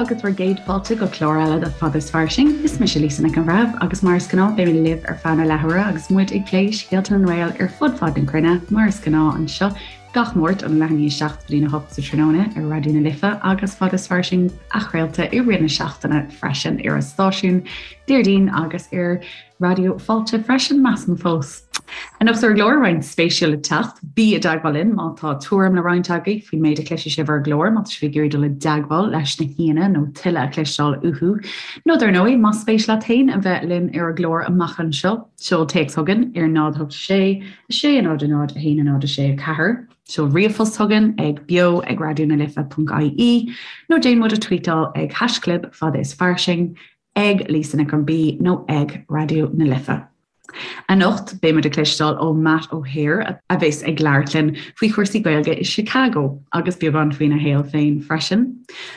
agus bhur gcéad fáilte go clár eile de Fada is Fairsing. Is mise Lisa Nic an Bhreithimh agus mar is gnáth beidh mé libh ar feadh na leathuaire agus muid ag plé scéalta na nGael ar fud fad na cruinne mar is gnáth anseo gach Máirt ón leath i ndiaidh 7 go dtí a 8 sa tráthnóna ar Raidió na Life agus Fada is Fairsing athchraolta i rith na seachtaine freisin ar an stáisiún Déardaoin agus ar Raidió Fáilte freisin, measaim fós. Anocht ar an gclár, roinnt spéisiúil le teacht. Bí i dteagmháil linn má tá tuairim le roinnt agaibh faoin méid a chloisfidh sibh ar an gclár, má tá sibh ag iarraidh dul i dteagmháil leis na haíonna nó tuilleadh a chloisteáil uathu. Nó dar ndóigh, más spéis leat féin a bheith linn ar an gclár amach anseo, seol téacs chugainn ar 0 8 6 6 0 0 1 0 6 4, seol ríomhphost chugainn ag beo ag raidionalife.ie nó déan muid a tweetáil ag haischlib fada is fairsing ag Lisa Nic an B nó ag Raidió na Life. Anocht, beidh muid ag cloisteáil ó Matt O'Hare a bheas ag labhairt linn faoi chúrsaí Gaeilge i Chicago agus beagán faoina shaol féin freisin.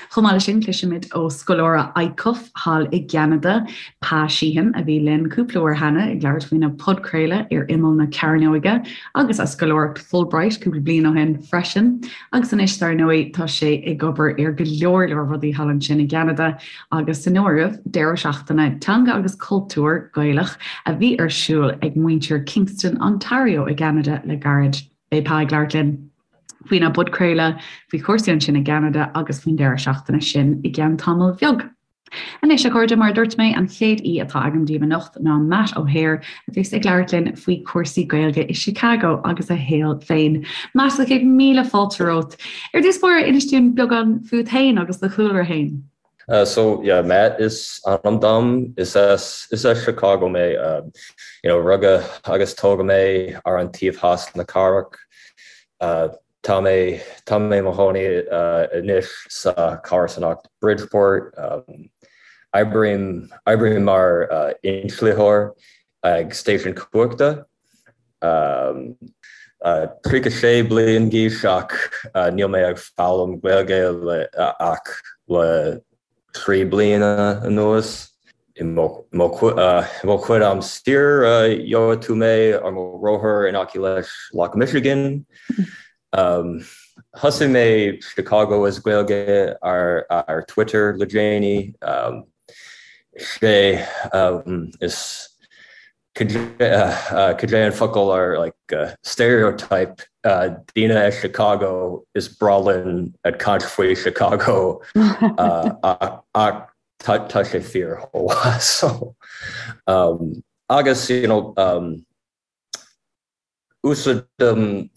Chomh maith leis sin, cloisfimid ó scoláire ICUF thall i gCeanada, Pa Sheehan, a bhí linn cúpla uair cheana ag labhairt faoina podchraoladh ar imeall na cearnóige agus a scoláireacht Fulbright cúpla bliain ó shin freisin. Agus anois, dar ndóigh, tá sé ag obair ar go leor leor rudaí thall ansin i gCeanada agus san áireamh, deireadh seachtaine teanga agus cultúir Gaelach a bhí ar siúl ag muintir Kingston, Ontario i gCeanada le gairid. Beidh Pa ag labhairt linn faoina bpodchraoladh, faoi chúrsaí ansin i gCeanada agus faoin deireadh seachtaine sin i gceann tamaill bheag. Anois, a chairde, mar a dúirt mé, an chéad aoi atá agam daoibh anocht ná Matt O'Hare, a bheas ag labhairt linn faoi chúrsaí Gaeilge i Chicago agus a shaol féin. Matt, sa chéad míle fáilte romhat. Ar dtús báire, inis dúinn beagán fút féin agus do chúlra féin. So yeah, Matt is ainm dom. Is as is as Chicago mé. You know, rugadh agus tógadh mé ar an taobh theas na cathrach. Tá mé tá mé i mo chónaí anois sa comharsanacht Bridgeport. Oibrím oibrím mar inslitheoir ag stáisiún cumhachta. 36 bliain d'aois ach níl mé ag foghlaim Gaeilge le ach le 3 bliana anuas. I mo chuid am saor gheobhaidh tú mé ar mo rothar in aice leis Loch Michigan. Thosaigh mé Chicago as Gaeilge ar Twitter le déanaí. Sé is Cad é an focal ar like stereotype daoine as Chicago is breá linn ag caint faoi Chicago ach tá sé fíor chomh maith so agus you know úsáidim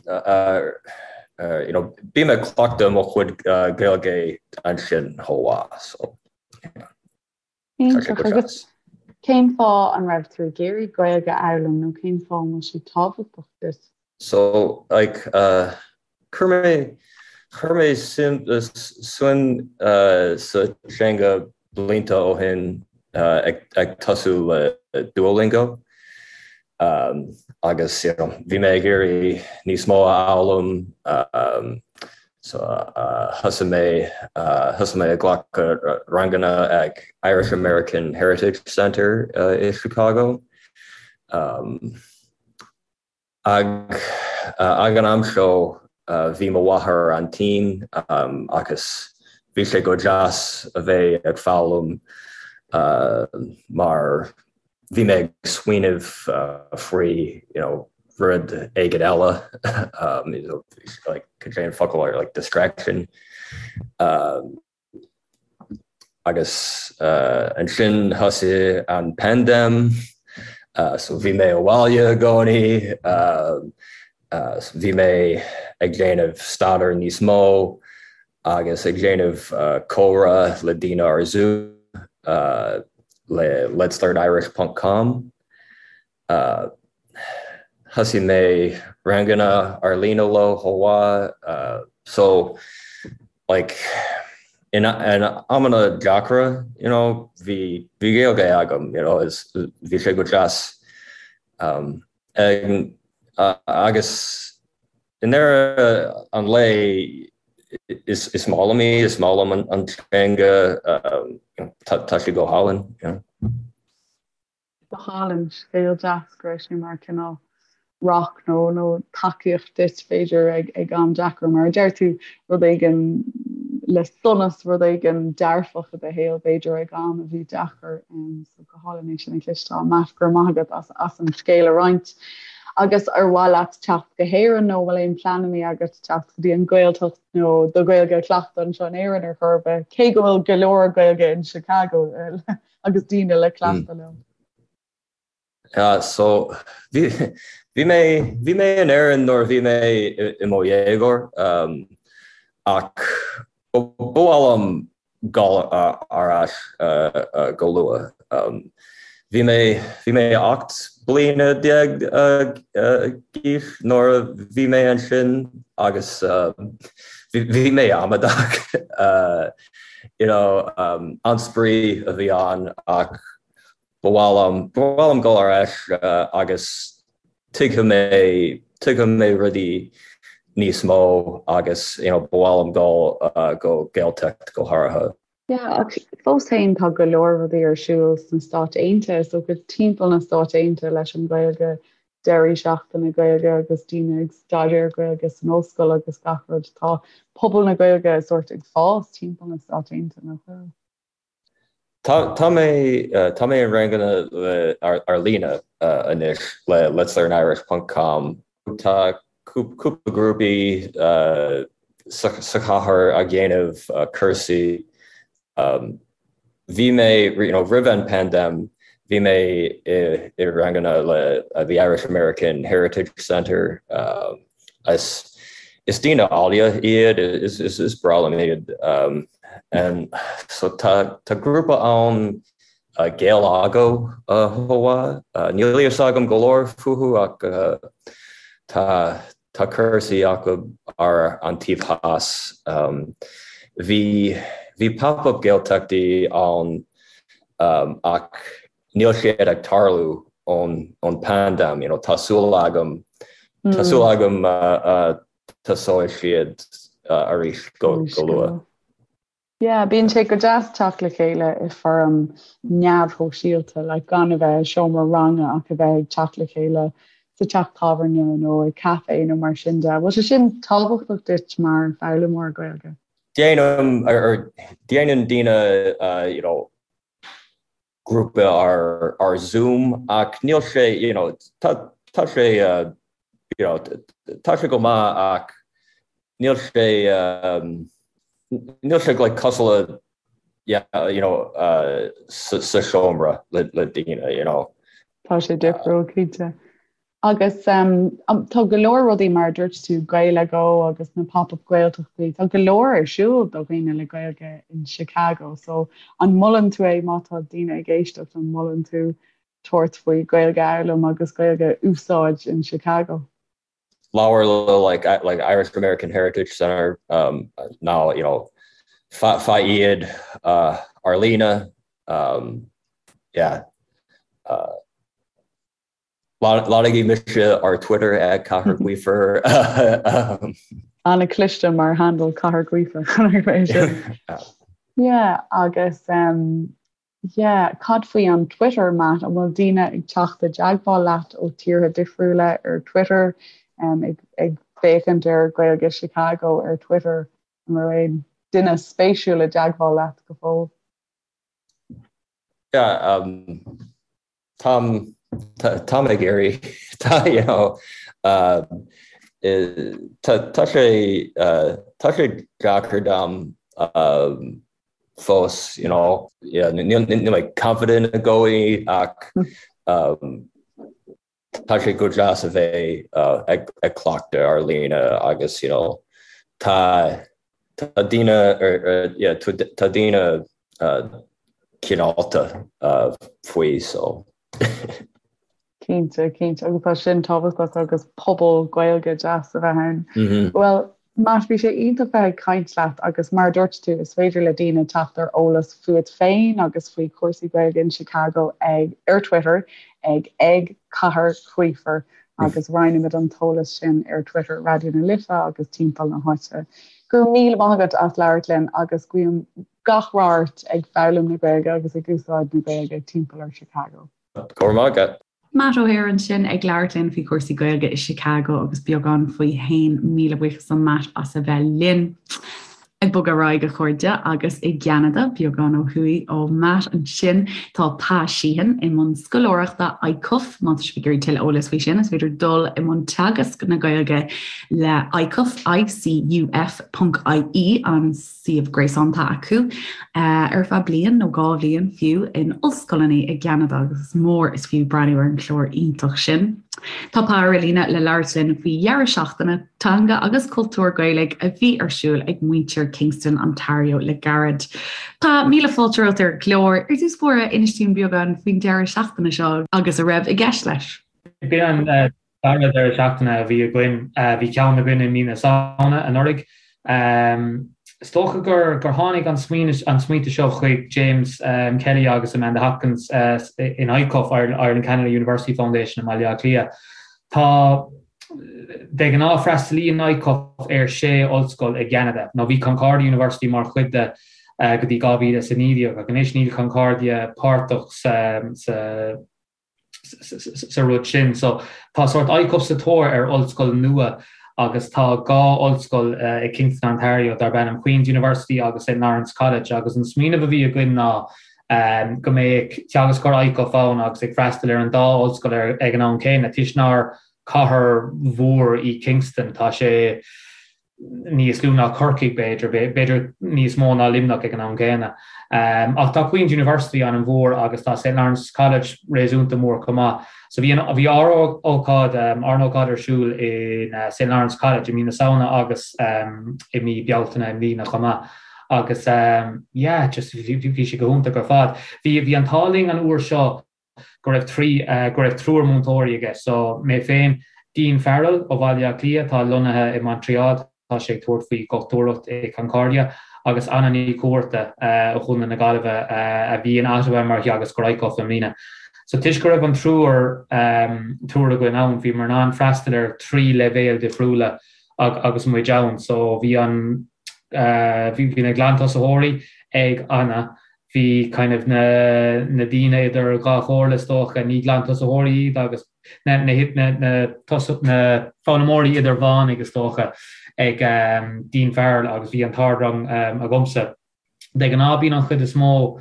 you know bím ag cleachtadh mo chuid Gaeilge ansin chomh maith so yeah. Iontach. Agus cén fáth an raibh tú ag iarraidh Gaeilge a fhoghlaim nó cén fáth an bhfuil sé tábhachtach duit? So, like, chuir mé, chuir mé suim, suim sa teanga blianta ó shin ag, ag tosú le Duolingo. Agus, you know, bhí mé ag iarraidh níos mó a fhoghlaim, so thosaigh mé, thosaigh mé ag glacadh ranganna ag Irish American Heritage Center i Chicago. Ag ag an am seo bhí mo mháthair an-tinn agus bhí sé go deas a bheith ag foghlaim mar bhí mé ag smaoineamh faoi you know rud éigin eile like cad é an focal ar like distraction agus ansin thosaigh an paindéim so bhí mé abhaile i gcónaí bhí mé ag déanamh staidéar níos mó agus ag déanamh comhrá le daoine ar Zoom le letslearnirish ponc com. Thosaigh mé ranganna ar líne leo chomh maith. So like in amanna deacra you know bhí bhí Gaeilge agam you know is bhí sé go deas agus i ndeireadh an lae is is maith liom í, is maith liom an teanga, tá sé go hálainn. Go hálainn, scéal deas go raibh sé mar cineál. rock nó nó tacaíocht duit b'fhéidir ag ag am deacair mar a deir tú rud éigin le sonas rud éigin dearfach i do shaol b'fhéidir ag am a bhí deacair um, so go hálainn é sin a chloisteáil Matt go raibh maith agat as as an scéal a roinnt. Agus ar mhaith leat teacht go hÉirinn nó bhfuil aon pleananna agat teacht go dtí an Ghaeltacht nó do Ghaeilge a chleachtadh anseo in Éirinn ar chor ar bith, cé go bhfuil go leor Gaeilge in Chicago agus daoine le cleachtadh leo. Yeah, so bhí bhí mé bhí mé in Éirinn nuair a bhí mé i mo dhéagóir um, ach ba mhaith liom dul ar ais uh, uh, go luath. Um, bhí mé bhí mé 18 bliana uh, uh, d'aois nuair a bhí mé ansin agus uh, bhí bhí mé amadach uh, you know, um, an-spraoi a bhí ann ach Ba mhaith liom, ba mhaith liom dul ar ais agus tuigfidh mé, tuigfidh mé rudaí níos mó agus you know ba mhaith liom dul go Gaeltacht go háirithe. Yeah, ach fós féin tá go leor rudaí ar siúl sna Stáit Aontaithe, so go timpeall na Stáit Aontaithe leis an Ghaeilge, deirí seachtaine Gaeilge agus daoine ag staidéar Gaeilge san ollscoil agus gach rud. Tá pobal na Gaeilge sórt ag fás timpeall na Stáit Aontaithe, nach bhfuil? Tá mé tá mé i ranganna ar líne anois le Let's Learn Irish ponc com. Tá cúpla grúpaí sa chathair ag déanamh cúrsaí. Bhí mé you know roimh an paindéim bhí mé i ranganna le the Irish American Heritage Centre. Is is daoine áille iad, is is is breá liom iad. And so tá tá grúpa ann Gaelago chomh maith. Níl a fhios agam go leor fúthu ach tá tá cúrsaí acu ar an taobh theas. Bhí bhí pop-up Gaeltachtaí ann ach níl siad ag tarlú ón ón paindéim, you know, tá súil agam, tá súil agam tosóidh siad arís go go luath. Yeah, bíonn sé go deas teacht le chéile i foirm neamhshóisialta, like gan a bheith i seomra ranga ach a bheith ag teacht le chéile sa teach tábhairne nó i café nó mar sin de. Bhfuil sé sin tábhachtach duit mar foghlaimeoir Gaeilge? Déanaim, or déanann daoine, you know, grúpa ar ar Zoom ach níl sé you know tá tá sé you know tá sé go maith ach níl sé níl sé like cosúil le yeah you know sa sa seomra le le daoine you know. Tá sé difriúil cinnte. Agus tá go leor rudaí mar a dúirt tú, Gaelago agus na pop-up Gaeltachtaí, tá go leor ar siúl do dhaoine le Gaeilge in Chicago. So an molann tú é má tá daoine ag éisteacht, an molann tú tabhairt faoi Gaeilge a fhoghlaim agus Gaeilge a úsáid in Chicago? Labhair le like like Irish American Heritage Center um, now you know faigh iad uh, ar líne um, yeah uh, Lorgaigí mise ar Twitter ag Cathair Gaofar. An-chliste mar handle Cathair Gaofar. Yeah, agus um, yeah, cad faoi an Twitter, Matt? An bhfuil daoine ag teacht i dteagmháil leat ó tíortha difriúla ar Twitter um, ag, ag féachaint ar Gaeilge Chicago ar Twitter? An raibh aon duine spéisiúil i dteagmháil leat go fóill? Yeah, um, Táim táim ag iarraidh tá you know tá tá sé tá sé deacair dom fós you know yeah níl níl mé confident i gcónaí ach tá sé go deas a bheith ag ag cleachtadh ar líne agus you know tá tá daoine ar yeah tá daoine cineálta faoi so. Cinnte, cinnte, agus tá sin tábhachtach agus pobal Gaeilge deas a bheith ann. Bhuel, Matt, bhí sé iontach bheith ag caint leat agus mar a dúirt tú, is féidir le daoine teacht ar eolas fúat féin agus faoi chúrsaí Gaeilge in Chicago ag ar Twitter ag ag Cathair Gaofar agus roinnfimid an t-eolas sin ar Twitter Raidió na Life agus timpeall na háite. Go raibh míle maith agat as labhairt linn agus guím gach rath ort ag foghlaim na Gaeilge agus ag úsáid na Gaeilge timpeall ar Chicago. Go raibh maith agat. Matt O'Hare ansin ag labhairt linn faoi chúrsaí Gaeilge i Chicago agus beagán faoi fhéin. Míle buíochas do Matt as a bheith linn. Ag bogadh ar aghaidh a chairde agus i gCeanada, beagán ó thuaidh ó Matt ansin, tá Pa Sheehan i mbun scoláireachta ICUF. Má tá sibh ag iarraidh tuilleadh eolais faoi sin, is féidir dul i mbun teagasc na Gaeilge le ICUF, ICUF ponc IE, an suíomh gréasáin atá acu ar feadh bliain nó 2 bhliain fiú in ollscoileanna i gCeanada agus is mór is fiú breathnú ar an chlár iontach sin. Tá Pa ar líne le labhairt linn faoi dheireadh seachtaine teanga agus cultúr Gaelaigh a bhí ar siúl ag muintir Kingston, Ontario le gairid. Pa, míle fáilte romhat ar an gclár. Ar dtús báire, inis dúinn beagán faoin deireadh seachtaine seo agus a raibh i gceist leis. B'in an dara deireadh seachtaine a bhí againn. Bhí ceann againn i mí na Samhna anuraidh. Is dócha gur tháinig an smaointe seo chuig James Kelly agus Amanda Hopkins in ICUF, Ireland Canada University Foundation i mBaile Átha Cliath. Tá, de ghnáth freastalaíonn ICUF ar sé ollscoil i gCeanada, nó bhí Concordia University mar chuid de go dtí 2019 ach anois níl Concordia páirteach sa sa rud sin. So tá sórt ICUF sa tóir ar ollscoil nua agus tá 2 ollscoil i Kingston, Ontario darb ainm Queen's University agus St Lawrence College agus an smaoineamh a bhí againn ná go mbeadh teagascóir ICUF ann agus ag freastal ar an dá ollscoil ag an am céanna toisc nár cathair mhór í Kingston. Tá sé níos lú ná Corcaigh, b'fhéidir, b'fhéidir níos mó ná Luimneach ag an am gcéanna. Ach tá Queen's University an-mhór agus tá St Lawrence College réasúnta mór chomh maith. So bhí an, bhí ár ócáid, ár n-ócáid ar siúl in St Lawrence College i mí na Samhna agus i mí Bealtaine i mbliana chomh maith. Agus yeah, just bhí sé go hiontach ar fad. Bhí, bhí an t-ádh linn an uair seo go raibh trí, go raibh triúr múinteoirí aige. So, mé féin, Dean Farrell ó Bhaile Átha Cliath atá lonnaithe i Montreal, tá sé ag tabhairt faoi dhochtúireacht i Concordia, agus Anna Ní Chuarta ó Chontae na Gaillimhe a bhí in Ottawa mar theagascóir ICUF i mbliana. So, toisc go raibh an triúr, triúr againn ann, bhíomar in ann freastal ar thrí leibhéal difriúla agus muid ann. So, bhí an, bhí na glantosaitheoirí ag Anna, Bhí kind of na na daoine idir dhá chomhairle is dócha, ní glantosaitheoirí iad agus na na na na na foghlaimeoirí idirmheánaigh is dócha ag Dean Farrell agus bhí an t-ardrang agamsa. De ghnáth bíonn an chuid is mó,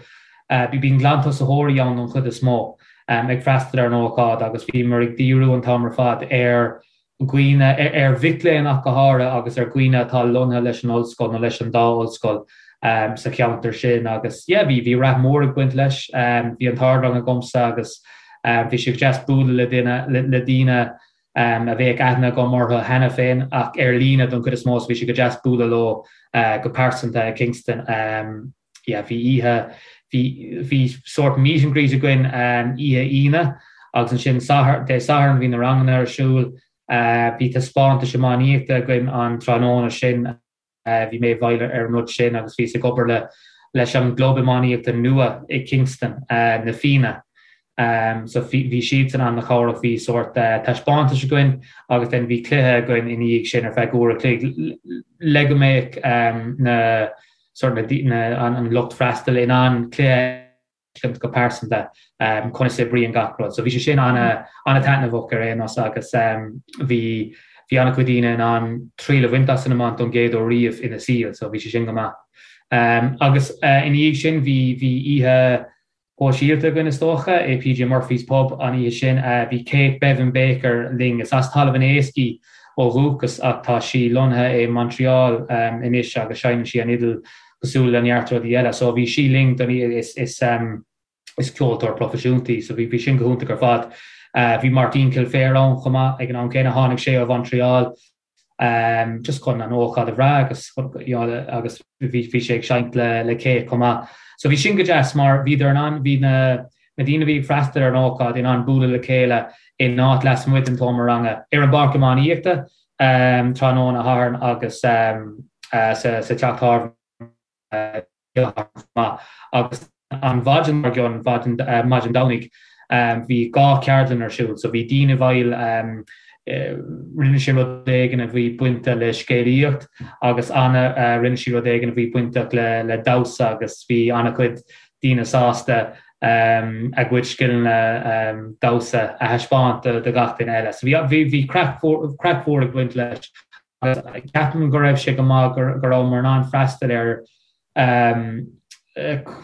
bíonn glantosaitheoirí ann don chuid is mó ag freastal ar an ócáid agus bhíomar ag díriú an t-am ar fad ar dhaoine, ar mhic léinn ach go háirithe agus ar dhaoine atá lonnaithe leis an ollscoil nó leis an dá ollscoil sa cheantar sin agus yeah bhí bhí rath mór ag baint leis. Bhí an t-ardrang agamsa agus bhí sé go deas bualadh le duine le daoine a bheadh aithne agam orthu cheana féin ach ar líne don chuid is mó so bhí sé go deas bualadh leo go pearsanta i Kingston. Yeah bhí oíche bhí bhí sórt meet and greet againn oíche Aoine agus ansin Satharn Dé Sathairn bhí na ranganna ar siúl. Bhí taispeántais iománaíochta againn an tráthnóna sin. Bhí mé i bhfeighil ar an rud sin agus bhíos ag obair le leis an gclub iománaíochta nua i Kingston, Na Fianna. So bhí siadsan an-chabhrach. Bhí sórt taispeántais againn agus then bhí cluiche againn ina dhiaidh sin ar feadh uair a chloig le go mbeadh na sort na an lucht freastail in ann cluiche a fheiscint go pearsanta conas a oibríonn gach rud. So bhí sé sin an-taitneamhach ar aon nós agus bhí bhí an-chuid daoine in ann triail a bhaint as an iomáint don gcéad uair riamh ina saol so bhí sé sin go maith. Agus ina dhiaidh sin bhí bhí oíche shóisialta againn is dócha, i PJ Murphy's Pub an oíche sin. Bhí Kate Bevan Baker linn. Is as Talamh an Éisc í ó dhúchas ach tá sí lonnaithe i Montreal anois agus seinneann sí an fhidil cosúil le neart rudaí eile. So bhí sí linn don oíche. Is is is ceoltóir proifisiúnta í so bhí bhí sin go hiontach ar fad. Bhí Martin Kilfair ann chomh maith ag an am céanna. Tháinig sé ó Mhontreal. just chun an ócáid a bhrath agus you know agus bhí bhí sé ag seinnt le le Kate chomh maith. So bhí sin go deas mar bhíodar in ann bhí na na daoine a bhí ag freastal ar an ócáid in ann bualadh le chéile in áit lasmuigh den tseomra ranga ar an bpáirc iománaíochta tráthnóna Shathairn agus sa sa teach tábhairne. maith agus an mhaidin dár gcionn, maidin Domhnaigh, bhí 2 cheardlann ar siúl. So bhí Dean i bhfeighil, rinne sé rud éigin a bhí bainte le scéalaíocht agus Anna, rinne sí rud éigin a bhí bainteach le damhsa agus bhí an-chuid daoine sásta. A gcuid scileanna damhsa a thaispeáint do gach duine eile. So bhí bhí craic craic mhór ag baint leis agus ceapaim go raibh sé go maith go rabhamar in ann freastal ar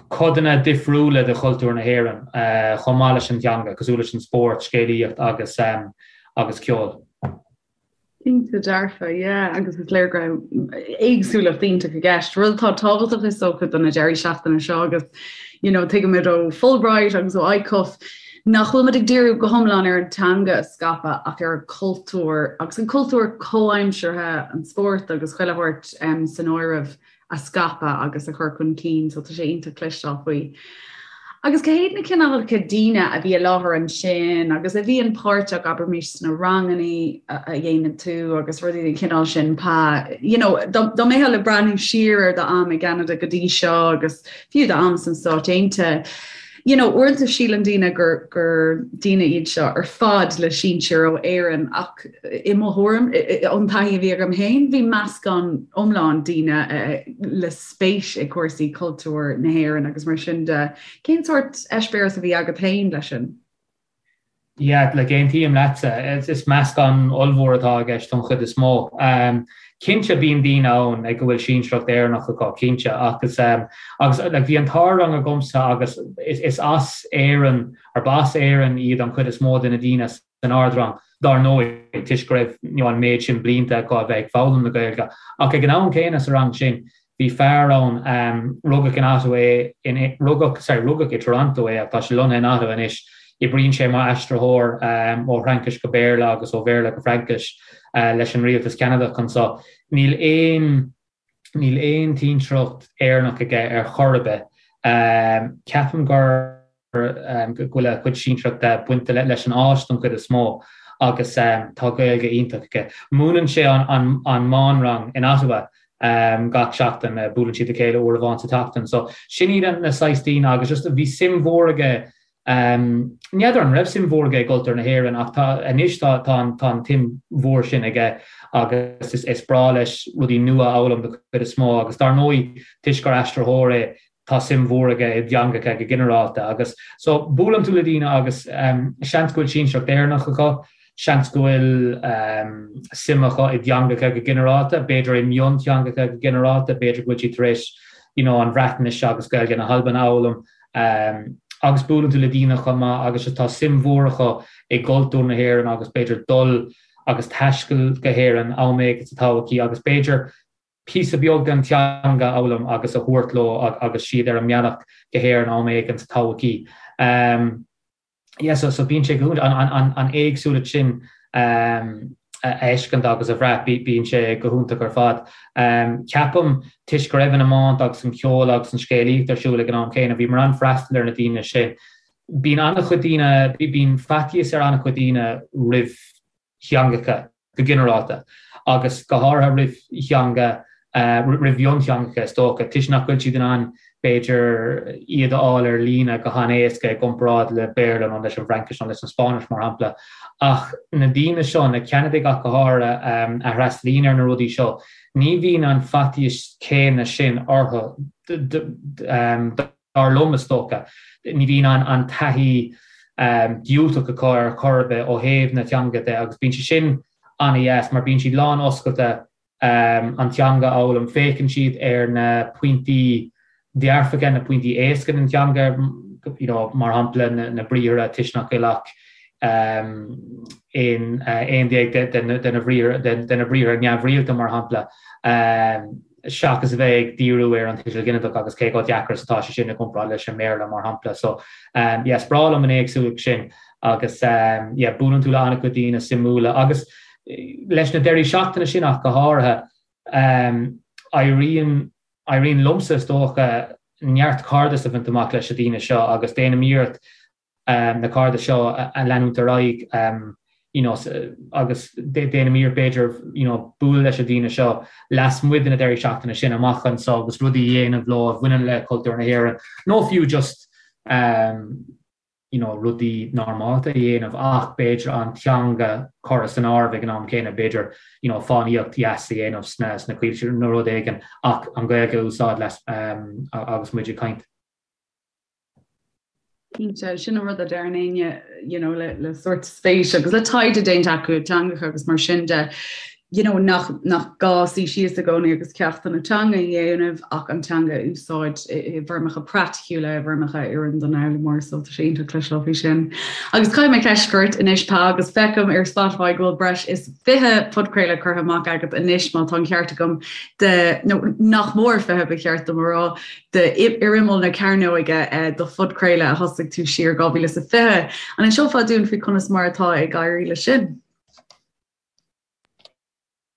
codanna difriúla de chultúr na hÉireann chomh maith leis an teanga, cosúil leis an spórt, scéalaíocht agus agus ceol. Cinnte dearfa, yeah, agus is léir go raibh éagsúlacht iontach i gceist. Rud atá tábhachtach is dócha do na deirí seachtaine seo agus you know, tuigimid ó Fulbright agus ó ICUF nach bhfuil muid ag díriú go hiomlán ar an teanga a scaipeadh ach ar an cultúr agus an cultúr comhaimseartha, an spórt agus chuile shórt um, san áireamh. a scaipeadh agus a chur chun cinn, so tá sé iontach cloisteáil faoi. Agus cé hiad na cineálacha daoine a bhí i láthair ansin agus a bhíonn páirteach, abraimis, sna ranganna a dhéanann tú agus rudaí den chineál sin, Pa, you know, dá mbeifeá le breathnú siar ar d'am i gCeanada go dtí seo agus fiú d'am sna Stáit Aontaithe, you know, uaireanta síleann daoine gur, gur daoine iad seo ar fad le sinsir ó Éirinn ach i mo thuairim, ón taithí a bhí agam féin, bhí meascán iomlán daoine le spéis i cúrsaí cultúir na hÉireann agus mar sin de. Cén sórt eispéireas a bhí agat féin leis sin? Yeah, like aontaím leatsa. Is meascán ollmhór atá i gceist don chuid is mó. Cinnte bíonn daoine ann ag a bhfuil sinsearacht Éireannach acu, cinnte, agus agus like bhí an t-ardrang agamsa agus is as Éirinn, or ba as Éirinn iad an chuid is mó de na daoine san ardrang, dar ndóigh, toisc go raibh you know an méid sin blianta acu a bheith ag foghlaim na Gaeilge. Ach ag an am céanna sa rang sin, Bhí fear ann, rugadh in Ottawa é, in, rugadh, sorry, rugadh i Toronto é ach tá sé lonnaithe in Ottawa anois. Oibríonn sé mar aistritheoir ó Fhraincis go Béarla agus ó Bhéarla go Fraincis leis an rialtas Ceanadach anseo. Níl aon, níl aon tsinsearacht Éireannach aige ar chor ar bith. Ceapaim gur. go bhfuil a chuid sinsearachta bainte leis an Áis don chuid is mó agus tá Gaeilge iontach aige. Múineann sé an meánrang in Ottawa gach seachtain, buaileann siad le chéile uair amháin sa tseachtain. So sin iad na saghas daoine agus just bhí suim mhór aige, n'fheadar an raibh suim mhór aige i gcultúr na hÉireann ach tá anois tá an tsuim mhór sin aige agus is breá leis rudaí nua a fhoghlaim don chuid is mó agus dar ndóigh toisc gur aistritheoir é tá suim mhór aige i dteangacha go ginearálta agus so buaileann tú le daoine agus seans go bhfuil sinsearacht Éireannach acu, seans go bhfuil suim acu i dteangacha go ginearálta, b'fhéidir i mionteangacha go ginearálta, b'fhéidir go bhfuil siad tar éis you know an Bhreatnais agus Gaeilge na hAlban a fhoghlaim agus buaileann tú le daoine chomh maith agus tá suim mhór acu i gcultúr na hÉireann agus b'fhéidir dul agus taisteal go hÉirinn am éigin sa todhchaí agus b'fhéidir píosa beag den teanga a fhoghlaim agus a thabhairt leo agus siad ar an mbealach go hÉirinn am éigin sa todhchaí. Yeah, so, so bíonn sé go hiontach, an, an, an éagsúlacht sin a fheiscint agus a bhrath, bíonn sé go hiontach ar fad. Ceapaim, toisc go raibh an iomáint agus an ceol agus an scéalaíocht ar siúl ag an am céanna, bhíomar in ann freastal ar na daoine sin. Bíonn an-chuid daoine, bíonn faitíos ar an-chuid daoine roimh theangacha go ginearálta, agus go háirithe roimh theanga, roimh mhionteangacha is dócha, toisc nach bhfuil siad in ann, b'fhéidir, iad a fháil ar líne go han-éasca i gcomparáid le Béarla nó leis an bhFraincis nó leis an Spáinnis, mar shampla. Ach na daoine seo, na Ceanadaigh ach go háirithe, a fhreastalaíonn ar na rudaí seo, ní bhíonn an faitíos céanna sin orthu. Dar liom, is dócha, ní bhíonn an taithí diúltach acu ar chor ar bith ó thaobh na teanga de agus bíonn sé sin an-dheas mar bíonn siad lán oscailte an teanga a fhoghlaim. Féachann siad ar na pointí dearfacha, na pointí éasca den teanga, you know, mar shampla na briathra toisc nach bhfuil ach 11 de na briathra neamhrialta, mar shampla. seachas a bheith ag díriú ar an tuiseal ginideach agus cé chomh deacair is atá sé sin i gcomparáid leis an mBéarla, mar shampla. So, yeah, is breá liom an éagsúlacht sin agus, yeah, buaileann tú le an-chuid daoine suimiúla agus leis na deirí seachtaine sin ach go háirithe, éiríonn, éiríonn liomsa is dócha neart cairdeas a bhaint amach leis na daoine seo agus déanaim iarracht na cairdis seo a leanúint ar aghaidh you know agus déanaim iarracht b'fhéidir you know bualadh leis na daoine seo lasmuigh de na deirí seachtaine sin amach anseo agus rudaí a dhéanamh leo a bhaineann le cultúr na hÉireann nó fiú just you know rudaí normálta a dhéanamh ach b'fhéidir an teanga curtha san áireamh ag an am céanna b'fhéidir you know fánaíocht dheas a dhéanamh sna sna coillte nó rud éigin ach an Ghaeilge a úsáid leis agus muid ag caint. Cinnte, sin an rud a deireann éinne you know, le, le sórt spéis agus le taighde déanta acu i dteangacha agus mar sin de, you know, nach, nach gá suí síos i gcónaí agus ceachtanna teanga a dhéanamh ach an teanga a úsáid i, i bhfoirmeacha praiticiúla, i bhfoirmeacha a oireann don fhoghlaimeoir, so tá sé iontach cloisteáil faoi sin. Agus caithfidh mé ceist a chur ort anois, Pa, agus feicim ar Spotify go bhfuil breis is 20 podchraoladh curtha amach agat anois, má tá an ceart agam, de, nó nach mór 20 ba cheart dom a rá, de Ar Imeall na Cearnóige do phodchraoladh a thosaigh tú siar 2020. An inseofá dúinn faoi conas mar atá ag éirí leis sin?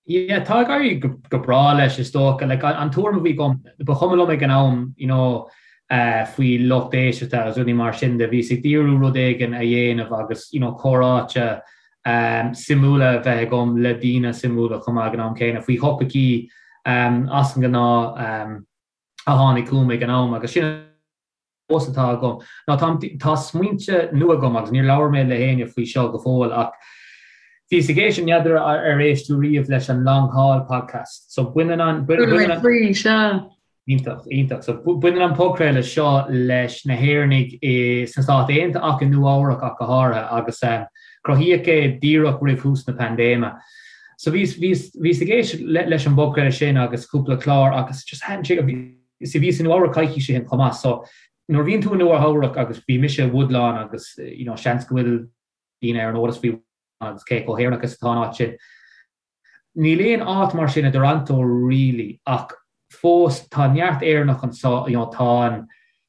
Yeah, tá ag éirí go breá leis is dócha. Like, an tuairim a bhí agam, ba chuma liom ag an am, you know, faoi lucht éisteachta agus rudaí mar sin de. Bhíos ag díriú rud éigin a dhéanamh agus, you know, comhráite suimiúla a bheith agam le daoine suimiúla chomh maith ag an am céanna faoi thopaicí as an ngnáth. a tháinig chugam ag an am agus sin fós atá agam ná tá tá smaointe nua agam agus níor labhair mé le héinne faoi seo go fóill ach bhíos ag éisteacht n'fheadar ar éist tú riamh leis an Long Haul podcast so baineann an baineann an sea. Iontach, iontach. So baineann an podchraoladh seo leis na hÉireannaigh i sna Stáit Aontaithe ach i Nua Eabhrac ach go háirithe agus cruthaíodh é díreach roimh thús na paindéime. So bhíos, bhíos, bhíos ag éisteacht leis an bpodchraoladh sin agus cúpla clár agus just thaitin sé, bhí, bhíos i Nua Eabhrac coicís ó shin chomh maith so nuair a bhíonn tú i Nua Eabhrac agus bhí mise i Woodlawn agus you know seans go bhfuil daoine ar an eolas faoi Woodlawn agus cé chomh hÉireannach is atá an áit sin. Níl aon áit mar sin i dToronto really ach fós tá neart Éireannach anso, you know tá an,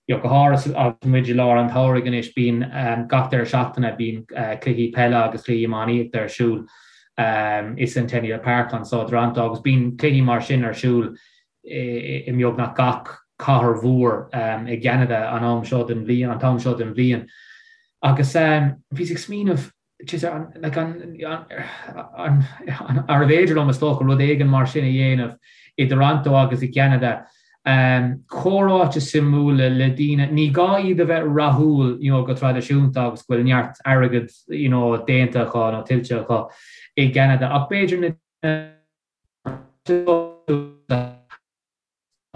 you know go háirithe agus muid i lár an tsamhraidh anois bíonn gach deireadh seachtaine bíonn cluichí peile agus cluichí iománaíochta ar siúl i Centennial Park anso i dToronto agus bíonn cluichí mar sin ar siúl i mbeagnach gach cathair mhór i gCeanada an am seo den bhliain, an t-am seo den bhliain. Agus bhíos ag smaoineamh Arbh fhéidir liom, is dócha, rud éigin mar sin a dhéanamh i dToronto agus i gCeanada? Comhráite suimiúla le daoine, ní gá iad a bheith rathúil you know go traidisiúnta agus go bhfuil neart airgead you know déanta acu nó tuillte acu i gCeanada ach b'fhéidir na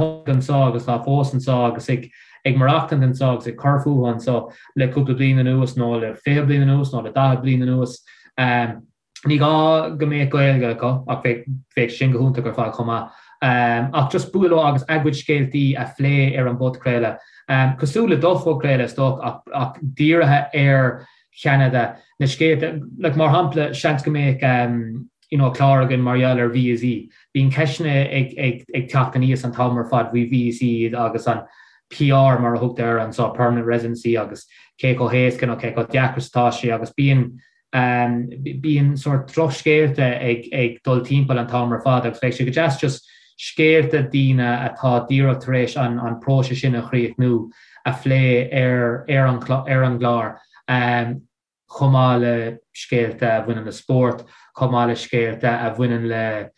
anseo agus atá fós anseo agus ag ag maireachtaint anseo agus ag cur fúthu anseo le cúpla bliain anuas nó le 20 bliain anuas nó le 40 bliain anuas. Ní gá go mbeadh Gaeilge acu ach bheadh bheadh sin go hiontach ar fad chomh maith. Ach just bualadh leo agus a gcuid scéaltaí a phlé ar an bpodchraoladh. Cosúil le do phodchraoladh is dócha ach ach dírithe ar Cheanada, na scéalta, like mar shampla seans go mbeadh you know clár againn mar gheall ar víosaí. Bíonn ceisteanna ag ag ag teacht aníos an t-am ar fad faoi víosaí agus an PR mar a thugtar air anseo, permanent residency agus cé chomh héasca nó cé chomh deacair is atá sé agus bíonn bíonn sórt drochscéalta ag ag dul timpeall an t-am ar fad agus bheadh sé go deas just scéalta daoine atá díreach tar éis an an próiseas sin a chríochnú a phlé ar ar an ar an gclár. Chomh maith le scéalta a bhaineann le spórt, chomh maith le scéalta a bhaineann le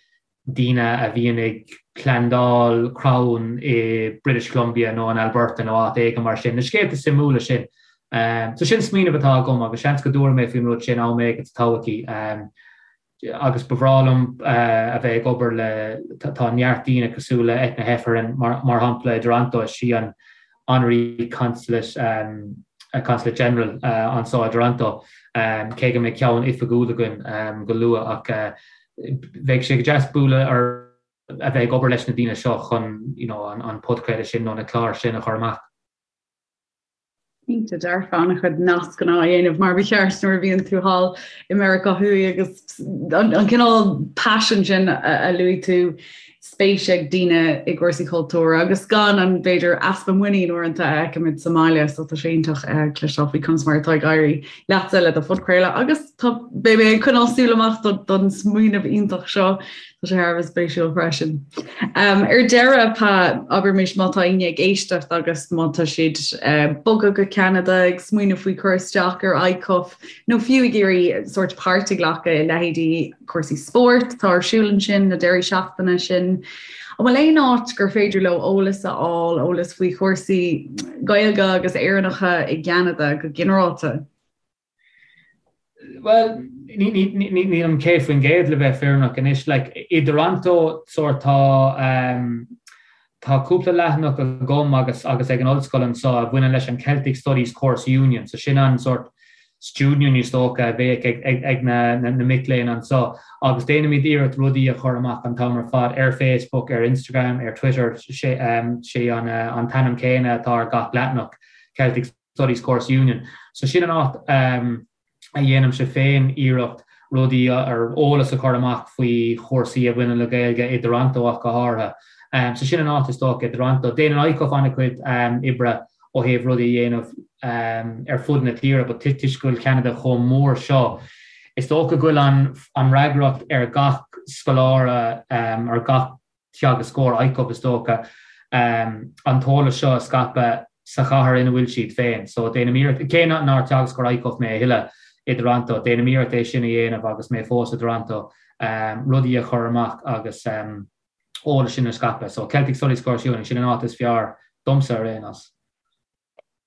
daoine a bhíonn ag plandáil crann i British Columbia nó in Alberta nó áit éigin mar sin, na scéalta suimiúla sin. So sin smaoineamh atá agam agus seans go dtabharfaidh mé faoin rud sin am éigin sa todhchaí. Agus ba bhreá liom a bheith ag obair le, tá neart daoine cosúil le Eithne Heffernan mar shampla i dToronto, is í an Honorary Consulate, Consulate General anseo i dToronto, cé go mbeidh ceann oifigiúil againn go luath ach bheadh sé go deas bualadh ar a bheith ag obair leis na daoine seo chun you know an podchraoladh sin nó na cláir sin a chur amach. Cinnte dearfa an-chuid nascanna á dhéanamh mar ba cheart nuair a bhíonn tú thall i Meiriceá Thuaidh agus an cineál paisean sin a luaigh tú, spéis ag daoine i gcúrsaí cultúir agus gan an, b'fhéidir, easpa muinín uaireanta a fheicimid sa mbaile so tá sé iontach cloisteáil faoi conas mar atá ag éirí leatsa le do phodchraoladh agus tá beidh mé ag coinneáil súil amach don smaoineamh iontach seo. Tá sé thar a bheith spéisiúil freisin. Ar deireadh, Pa, abraimis má tá éinne ag éisteacht agus má tá siad ag bogadh go Ceanada, ag smaoineamh faoi cur isteach ar ICUF, nó fiú ag iarraidh sórt páirt a ghlacadh i leithéidí cúrsaí spóirt atá ar siúl ansin na deirí seachtaine sin, an bhfuil aon áit gur féidir leo eolas a fháil, eolas faoi chúrsaí Gaeilge agus Éireannacha i gCeanada go ginearálta? Bhuel, nílim 100% le bheith fírinneach anois. Like, i dToronto, sórt, tá, ehm, Tá cúpla leathanach agam agus agus ag an ollscoil anseo a bhaineann leis an Celtic Studies Course Union, so sin an sort student union is dócha a bheadh ag ag ag na na mic léinn anseo agus déanaimid iarracht rudaí a chur amach an t-am ar fad ar Facebook, ar Instagram, ar Twitter, sé sé an an t-ainm céanna atá ar gach leathanach, Celtic Studies Course Union. So sin an áit a dhéanaimse féin iarracht rudaí ar eolas a chur amach faoi chúrsaí a bhaineann le Gaeilge i dToronto ach go háirithe. So sin an áit is dócha i dToronto. Déanann ICUF an-chuid oibre ó thaobh rudaí a dhéanamh ar fud na tíre but toisc go bhfuil Ceanada chomh mór seo, is dócha go bhfuil an fhreagracht ar gach scoláire, ar gach teagascóir ICUF is dócha, an t-eolas seo a scaipeadh sa chathair ina bhfuil siad féin. So déanaim iarracht, cé nár teagascóir ICUF mé a thuilleadh i dToronto, déanaim iarracht é sin a dhéanamh agus mé fós i dToronto, rudaí a chur amach agus eolas sin a scaipeadh. So Celtic Studies Course Union, sin an áit is fearr domsa ar aon nós.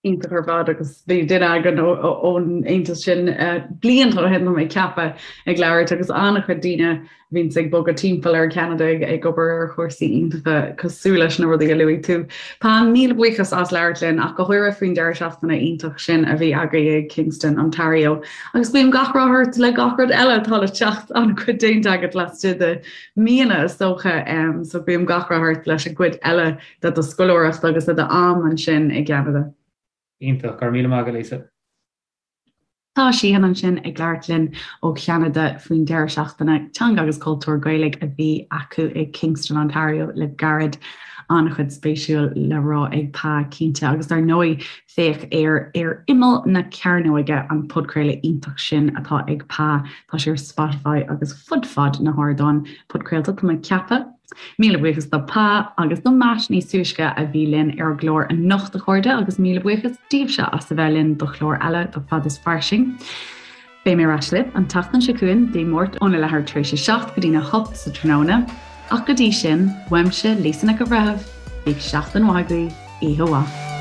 Iontach ar fad agus bhí duine againn ón aontas sin blianta ó shin tá mé ag ceapadh ag labhairt agus an-chuid daoine a bhíonns ag bogadh timpeall ar Cheanada ag obair ar chúrsaí iontacha cosúil leis na rudaí a luaigh tú. Pa, míle buíochas as labhairt linn ach go háirithe faoin deireadh seachtaine iontach sin a bhí agaibh i Kingston, Ontario. Agus guím gach rath ort le gach rud eile atá le teacht an-chuid déanta agat laistigh de míonna is dócha so guím gach rath ort leis an gcuid eile de do scoláireacht agus de d'am ansin i gCeanada. Iontach, go raibh míle maith agat Lisa. Tá Síthean ansin ag labhairt linn ó Cheanada faoin deireadh seachtaine teanga agus cultúr Gaeilge a bhí acu i Kingston, Ontario le gairid. An-chuid spéisiúil le rá ag Pa cinnte agus dar ndóigh féach ar Ar Imeall na Cearnóige an podchraoladh iontach sin atá ag Pa. Tá sé ar Spotify agus fud fad na hardán podchraolta tá mé ag ceapadh. Míle buíochas do Pa agus do Matt níos túisce a bhí linn ar an gclár anocht a chairde agus míle buíochas daoibhse as a bheith linn do chlár eile de Fad is Fairsing. Beidh mé ar ais libh an tseachtain seo chugainn, Dé Máirt óna leathuair tar éis a 7 go dtína 8 sa tráthnóna. Ach go dtí sin, uaimse, Lisa Nic an Bhreithimh, bíodh seachtain mhaith agaibh, oíche mhaith.